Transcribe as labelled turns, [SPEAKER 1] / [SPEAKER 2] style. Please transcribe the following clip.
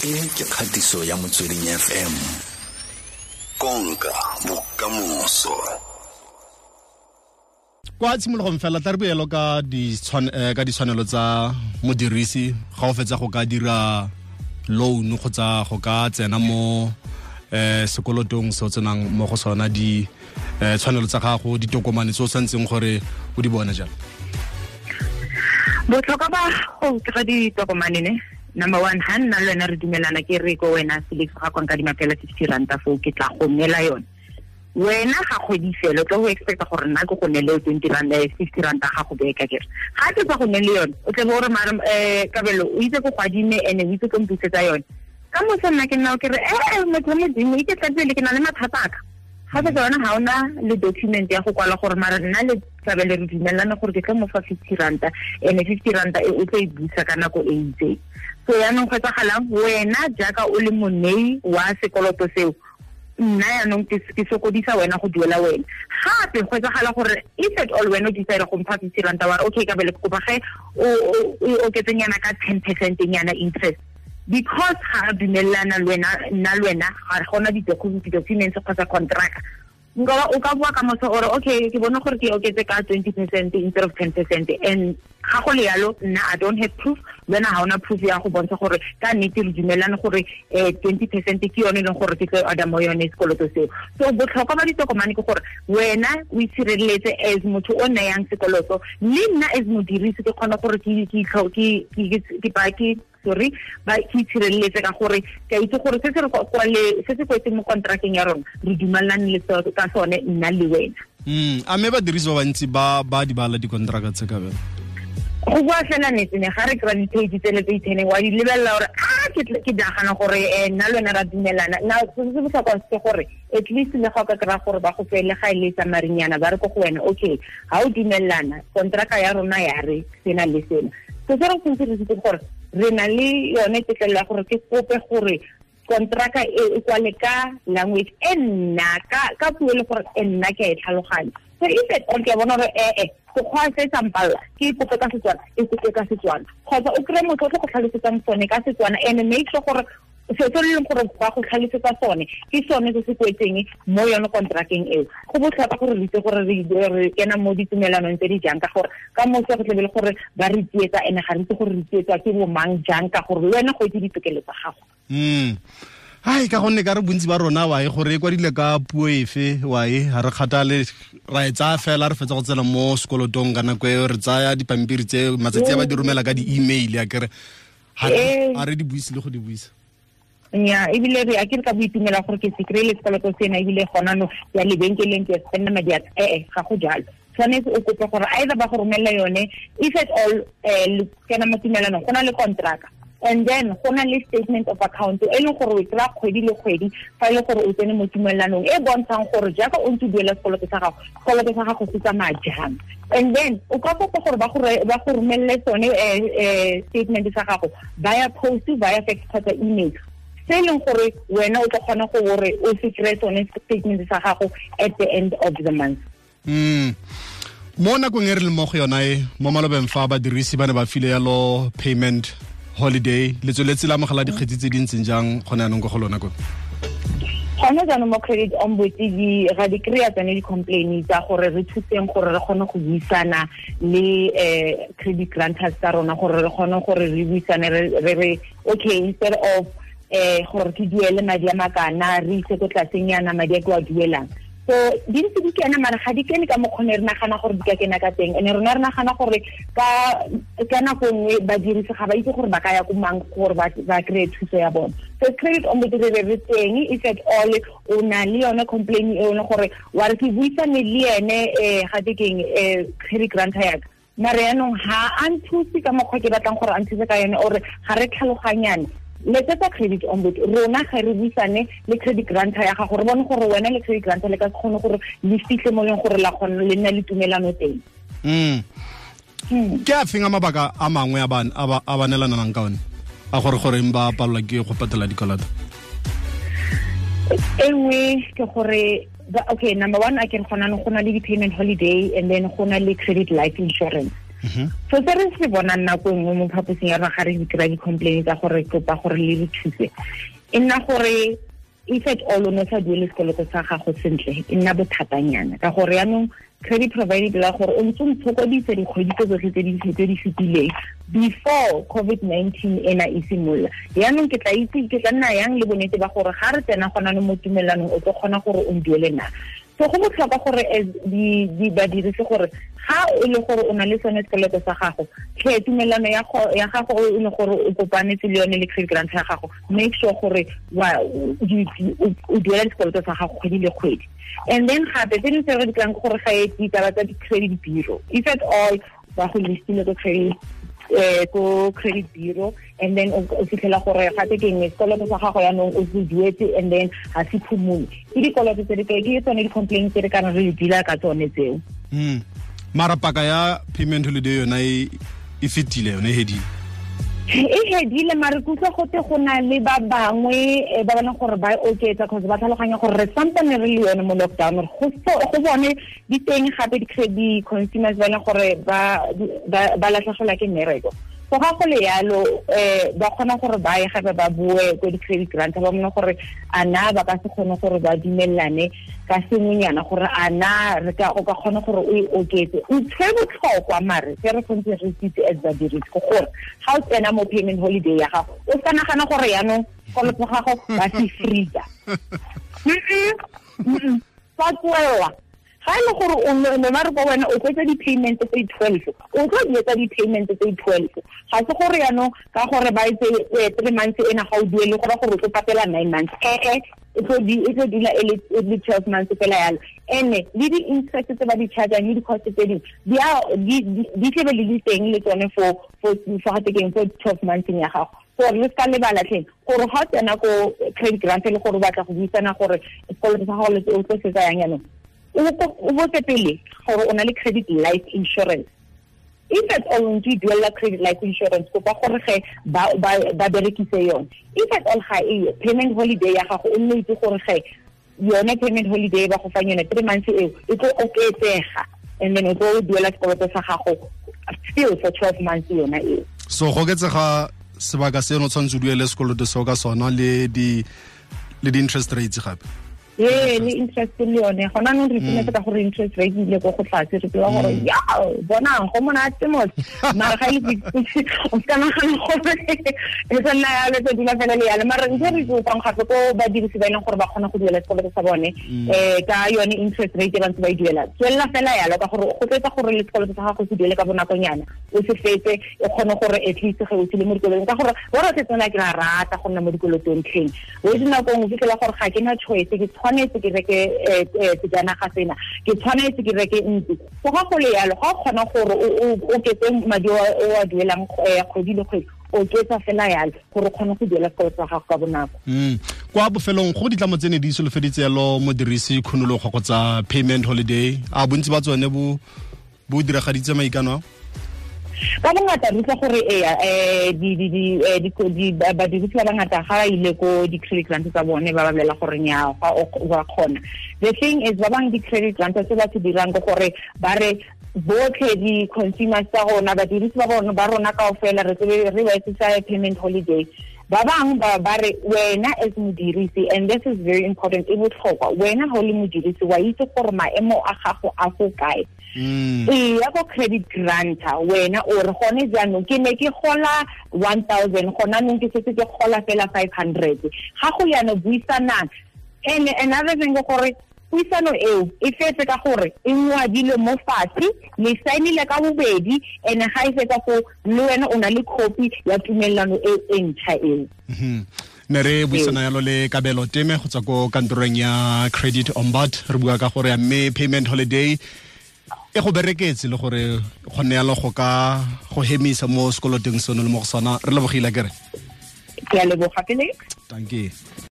[SPEAKER 1] E ke kgatiso ya Motsweding FM. Konka bokamoso.
[SPEAKER 2] Kwa tshimologong fela tla re boelo ka ditshwanelo tsa modirisi ga o fetsa go ka dira loan kgotsa go ka tsena mo sekolotong se o tsenang mo go sona, di tshwanelo tsa gago, ditokomane tse o tshwanetseng gore o di bone jalo.
[SPEAKER 3] Botlhokwa ba go kry ditokomane ne, number one, ha nna le wena re dumelana, ke re ko wena Felix ga kwa nka dimapela 50 ranta foo, ke tla go neela yone. Wena ga kgwedi fela o tlo go expecta gore nna ke go neele 20 ranta, 50 ranta ga go beka kere. Ga ke tsa go neele yone, o tle bo re mara Kabelo o itse ko go adime ene o itse ko mpusetsa yone. Ka moso nna ke nna ke re motho wa Modimo ike tla pele ke na le mathata a ka. Ga se yona ga ona le document ya go kwala gore mara nna le Kabelo re dumelana gore ke tlo mo fa 50 ranta ene 50 ranta e o tlo e busa ka nako e itseng. So yaanong go etsagalang, wena jaaka o le monei wa sekoloto seo, nna yaanong ke sokodisa wena go duela wena. Gape go etsagala gore if at all wena o decide go mpha 50 ranta wa re okay Kabelo ke kopa ge o oketsenyana ka 10% nyana interest, because ga re dumelana le wena, nna le wena ga gona di-documents kgotsa contract. Nka o ka bua ka moso ore okay ke bona gore ke oketse ka 20% instead of 10%, and ga go le yalo nna I don't have proof, wena ga ona proof ya go bontsha gore ka nnete re dumelane gore 20% ke yone e leng gore ke tlo order mo yone sekoloto seo. So botlhokwa ba ditokomane ke gore wena o itshireletse as motho o nayang sekoloto, le nna as modirisi ke kgona gore ke itshireletse ka gore ke itse gore se se re kwale se se kwetseng mo contracteng ya rona re dumelane le ka sone nna le wena.
[SPEAKER 2] A mme badirisi ba bantsi ba di bala dikontraka tse, Kabelo?
[SPEAKER 3] Go bua fela nnete ne ga re kry-a di-page tsele tse iteneng wa di lebelela gore a ke nagana gore nna le wena ra dumelana. Now se se botlhokwa ke gore at least le ga o ka kry-a gore ba go fele ga e le sa marinyana ba re ko go wena okay ga o dumelana kontraka ya rona ya re sena le sena. So se re tshwanetse re itse gore re na le yone tetlelo ya gore ke kope gore kontraka e kwale ka language e nna ka puo e le gore e nna ke a e tlhaloganya. So if at all ke a bona gore sekgwa se sa mpalla ke kope ka Setswana, e kope ka Setswana, kgotsa o kry-e motho o tlo go tlhalosetsang sone ka Setswana, and make sure gore se se leng gore ba go tlhalosetsa sone ke sone se se kwetseng mo yone kontrakeng eo. Go botlhokwa gore re itse gore re kena mo ditumelanong tse di jang, ka gore ka moso go tlebe le gore ba re tsietsa ene ga re itse gore re tsietswa ke bo mang jang, ka gore le wena go itse ditokelo tsa gago.
[SPEAKER 2] Ai ka gonne ka re bontsi ba rona wa e gore e kwadile ka puo efe wa e ga re kgathale, ra e tsaya fela re fetsa go tsena mo sekolotong ka nako eo, re tsaya dipampiri tse matsatsi a ba di romela ka di-email ya kere ga re di buise le go di buisa.
[SPEAKER 3] Nya ebile re a ke re ka boitumela gore ke se kry-ile sekoloto sena ebile gona no ya lebenkeleng ke spenda madi a ga go jalo. Tshwanetse o kope gore either ba go romelela yone if at all kena mo tumelanong go na le contract, and then go na le statement of account e leng gore o kry-a kgwedi le kgwedi fa e le gore o tsene mo tumelanong e bontshang gore jaaka o ntse o duela sekoloto sa gago, sekoloto sa gago se tsamaya jang. And then o ka kopa gore ba go romelele sone statement sa gago via post, via fax kgotsa email, se e leng gore wena o tla kgona gore o se kry-e sone statement sa gago at the end of the month.
[SPEAKER 2] Mo nakong e re leng mo go yona e, mo malobeng fa badirisi ba ne ba file yalo payment holiday, le tsweletse la amogela dikgetsi tse di ntseng jang gone jaanong ko go lona ko?
[SPEAKER 3] Gone jaanong mo credit ombud ga di kry-a tsone di-complain tsa gore re thuseng gore re kgone go buisana le credit granters tsa rona, gore re kgone gore re buisane re re okay instead of gore ke duele madi a makana re ise ko tlasenyana madi a ke wa duelang. So di ntse di kena mara ga di kene ka mokgwa re nagana gore di ka kena ka teng, and rona re nagana gore ka nako nngwe badirisi ga ba itse gore ba ka ya ko mang gore ba kry-e thuso ya bone. So credit ombud re teng if at all o na le yone complaint e leng gore wa re ke buisane le ene ga te keng credit granter ya ka, mare yaanong ga a nthuse ka mokgwa ke batlang gore a nthuse ka yone, ore ga re tlhaloganyane. Letsetsa credit ombud rona ga re buisane le credit granter ya gago, re bone gore wena le credit granter le ka se kgone gore le fitlhe mo leng gore la kgona le nna le tumelano teng.
[SPEAKER 2] Ke a feng a mabaka a mangwe a ba neelanang ka one a gore goreng ba palelwa ke go patela dikoloto?
[SPEAKER 3] E nngwe ke gore okay, number one a ke re gona go na le di-payment holiday, and then go na le credit life insurance. So se re se bonang nako nngwe mo phaposing ya rona ga re dira di-complaint tsa gore kopa gore le re thuse, e nna gore if at all o ne sa duele sekoloto sa gago sentle, e nna bothatanyana ka gore yaanong credit provider la gore o ntse o ntshokodise dikgwedi tse tsotlhe tse di fetileng before COVID-19 ena e simolola. Yaanong ke tla itse ke tla nna yang le bonnete ba gore ga re tsena gona mo tumelanong o tlo kgona gore o nduele na. So go botlhokwa gore as di badirisi gore ga o le gore o na le sone sekoloto sa gago, tlhe tumelano ya gago o le gore o kopanetse le yone le credit grant ya gago, make sure gore o duela sekoloto sa gago kgwedi le kgwedi. And then gape tse dingwe tse re di kry-ang ke gore ga e ditaba tsa di-credit bureau, if at all ba go listile ko credit bureau, and then o fitlhela gore gape ke eng sekoloto sa gago yaanong o se duetse and then ga se phumole. Ke dikoloto tse di ke tsone di-complaint tse re kana re di deala ka tsone tseo.
[SPEAKER 2] Mara paka ya payment holiday yona e fetile, yone e hedile.
[SPEAKER 3] E hedile, mare ke utlwa gote go na le ba bangwe ba bona gore ba oketsa cause ba tlhaloganya gore re sampane re le yone mo lockdown, go bone di teng gape di-credit consumers ba leng gore ba latlhegelwa ke mmereko. So ga go le yalo ba kgona gore ba ye gape ba bue ko di-credit grant ba bone gore a na ba ka se kgone gore ba dumelane ka sengwenyana gore a na re ka o ka kgona gore o e oketse. Ntho e botlhokwa mare se re tshwanetse re itse as badirisi ke gore ga o tsena mo payment holiday ya gago o sa nagana gore yaanong sekoloto gago ba se freeza. Ba tswelela. Ga e le gore o ne ba re ko wena o tlo etsa di-payment tse 12, o tlo di etsa di-payment tse 12. Ga se gore yaanong ka gore ba etse 3 months ena ga o duele go ra gore o tlo patela 9 months. E tlo dula e le 12 months fela yalo. Ene le di-interest tse ba di chargeang le di-cost tse dingwe di tlebe le di teng le tsone for for 12 months ya gago. Gore le ska lebala tleng gore ga o tsena ko credit grant le gore o batla go buisana gore sekoloto sa gago le o tlo se tsayang yaanong, o botse pele gore o na le credit life insurance. If at all o ntse o duela credit life insurance, kopa gore ge ba berekise yone. If at all ga eyo payment holiday ya gago, o nne itse gore ge yone payment holiday ba go fang yone 3 months eo e tlo oketsega, and then o tlo duela sekoloto sa gago still for 12 months yona eo.
[SPEAKER 2] So go oketsega sebaka seno tshwanetse o duele sekoloto seo ka sona le di-interest rates gape.
[SPEAKER 3] Ee, le interest le yone gona nong re itumetse ka gore interest rate ile ko go tlase, re tseba gore ya bonang go monate mos, mara ga ile o ska nagana gore e tla nna yalo, tse dula fela le yalo. Mara ntse re kopang gape ko badirisi ba e leng gore ba kgona go duela sekoloto sa bone ka yone interest rate e ba ntse ba e duela, tswelela fela yalo ka gore go tletsa gore le sekoloto sa gago se duele ka bonakonyana, o se fetse e kgone gore at least ge o tsile mo dikolotong, ka gore bo re tsena ke rata go nna mo dikolotong tlheng. O dinako nngwe fitlhela gore ga ke na choice, ke tshwanetse ke reke sejanaga sena, ke tshwanetse ke reke ntlo. So ga go le yalo ga o kgona gore o oketse madi o a duelang kgwedi le kgwedi, oketsa fela yalo gore o kgone go duela sekoloto sa gago ka bonako.
[SPEAKER 2] Kwa bofelong go ditlamo tse ne di solofeditse yalo modirisi khunologo kgotsa payment holiday, a bontsi ba tsone bo diragaditse maikano a?
[SPEAKER 3] Ka bongata re utlwa gore badirisi ba bangata ga ba ile ko di-credit grant tsa bone ba ba bolela gore nnyaa wa kgona. The thing is ba bangwe di-credit grant tse ba se dirang ke gore ba re botlhe di-consumers tsa rona, badirisi ba rona kaofela re tsebe re ba etsetsa payment holiday. Ba bangwe ba re wena as modirisi, and this is very important, e botlhokwa, wena ga o le modirisi wa itse gore maemo a gago a fo kae. E ya ko credit granter wena o re gone jaanong ke ne ke gola 1000, gona nong ke setse ke gola fela 500. Ga go yana buisanang. And another thing ke gore puisano eo e fetse ka gore e ngwadilwe mo fatshe, le saenile ka bobedi, and ga e fetsa foo le wena o na le copy ya tumelelano e e ntšha eo.
[SPEAKER 2] Ne re buisana yalo le Kabelo Teme go tswa ko kantorong ya Credit Ombud, re bua ka gore ya mme payment holiday e go bereketse le gore kgonne yalo go ka go hemisa mo sekoloteng seno le mo go sona. Re lebogile kere.
[SPEAKER 3] Ke a leboga pele.
[SPEAKER 2] Dankie.